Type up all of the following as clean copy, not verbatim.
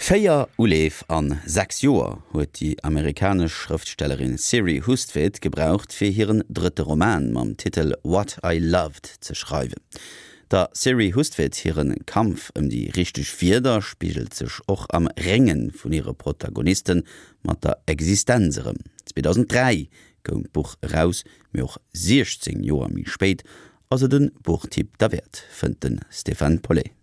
Véier Uleef an 6 Joer huet déi amerikanesch Schrëftstellerin Siri Hustvedt gebraucht, fir hiren drëtte Roman mam Titel What I Loved ze schreiwen. Der Siri Hustvedt hire Kampf ëm déi richteg Wierder spigelt sech och am Rénge vun hire Protagoniste mat der Existenz erëm. 2003 koum d'Buch eraus, mee och 16 Joer méi spéit ass et e Buchtipp derwäert, fënnt de Stéphane Paulet.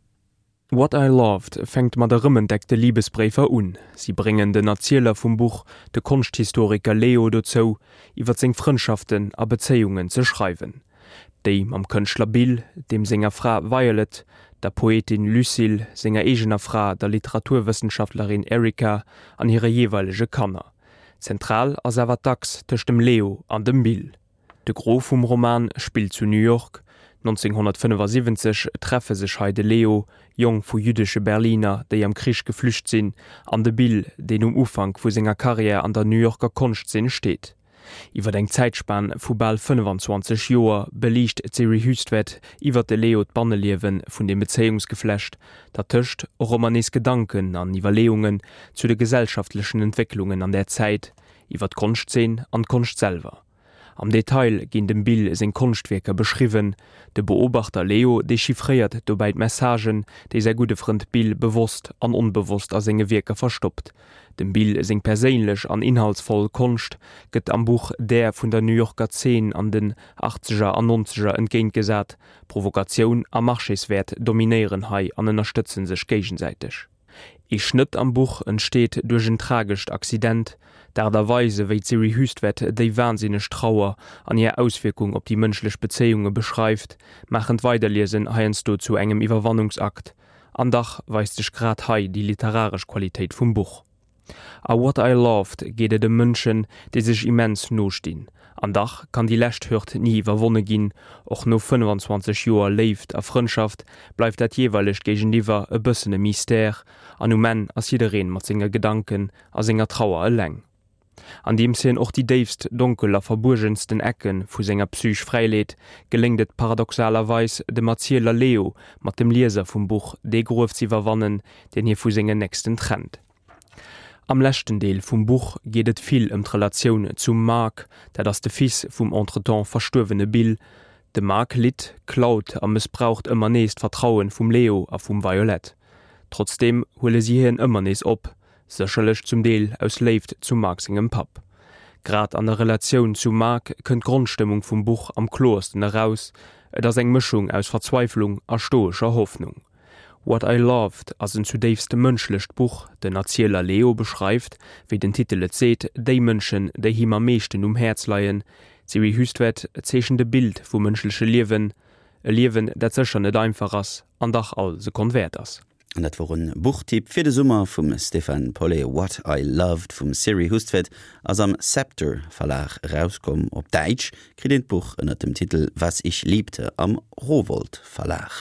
What I Loved fänkt mat erëmentdeckte Libesbréifer un. Si bréngen den Erzieler vum Buch, de Konschthistoriker Leo, dozou, iwwer seng Frëndschaften a Bezéiungen ze schreiwen. Déi mam Kënschtler Bill, deem senger Fra Violet, der Poetin Lucille, senger eegener Fra, der Literaturwëssenschaftlerin Erica an hire jeeweilege Kanner. Zentral ass awer d'Achs tëscht dem Leo an dem Bill. De Gros vum Roman spillt zu New York. 1975 treffe sech hei de Leo, Jong vu jüddesche Berliner, déi am Krich geflücht sinn, an de Bill, deen um Ufank vu senger Karriär an der New Yorker Konschtzeen steet. Iwwer eng Zäitspan vu bal 25 Joer beliicht d'Siri Hustvedt iwwer de Leo d'Banneliewe vun dem Bezéiungsgeflecht, dertëscht och ëmmer nees Gedanken an Iwwerleeungen zu de gesellschaftlechen Entwécklungen an där Zäit, iwwer d'Konschtzeen an d'Konscht selwer. Am Detail ginn dem Bill seng Konschtwierker beschriwwen. De Beobachter Leo dechiffréiert dobäi d'Messagen, déi säi gudde Frënd Bill bewosst an onbewosst a senge Wierker verstoppt. Dem Bill seng perséinlech an inhaltsvoll Konscht gëtt am Buch där vun der New Yorker Zeen an den Achtzeger an Nonzeger entgéintgesat. Provokatioun a Marchéswäert dominéieren hei an ënnerstëtze sech géigesäiteg. Ee Schnëtt am Buch entsteet duerch en tragescht Accident. D'Aart a Weis, ewéi d'Siri Hustvedt déi wahnsinneg Trauer an hir Auswierkung op déi mënschlech Bezéiunge beschreift, maachen d'Weiderliesen heiansdo zu engem Iwwerwannungsakt. An dach weist sech grad hei déi literaresch Qualitéit vum Buch. A What I Loved geet et ëm Mënschen, déi sech immens no stinn. An dach kann déi lescht Hürd ni iwwerwonne ginn. Och no 25 Joer Léift a Frëndschaft bleift dat jeeweilegt Géigeniwwer e bëssen e Mystère an um Enn ass jiddereen mat senge Gedanken a senger Trauer eleng. Andeems hien och déi déifst, donkel a verbuergensten Ecke vu senger Psych fräileet, geléngt et paradoxalerweis dem Erzieler Leo mat dem Lieser vum Buch dee Gruef z'iwwerwannen, deen hie vu sengen Nächsten trennt. Am leschten Deel vum Buch geet et vill ëm d'Relatioun zum Mark, dat ass de Fils vum entretemps verstuerwene Bill. De Mark litt, klaut a mëssbraucht ëmmer nees d'Vertraue vum Leo a vum Violette. Trotzdeem huele si hien ëmmer nees op, sécherlech zum Deel aus Léift zum Mark sengem Papp. Grad an der Relatioun zum Mark kënnt d'Grondstëmmung vum Buch am kloersten eraus, et ass eng Mëschung aus Verzweiflung a stoescher Hoffnung. What I Loved ass en zudéifst mënschlecht Buch. Den Erzieler Leo beschreift, wéi den Titel et seet, déi Mënschen, déi him am meeschten um Häerz leien. D'Siri Hustvedt zeechent e Bild vum mënschleche Liewen, e Liewen, dat sécher net einfach ass an dach all Sekonn wäert ass. An dat wor en Buchtipp fir de Summer vum Stéphane Paulet. What I Loved vum Siri Hustvedt ass am Sceptre Verlag erauskomm. Op Däitsch kritt een d'Buch ënnert dem Titel Was ich liebte am Rowohlt Verlag.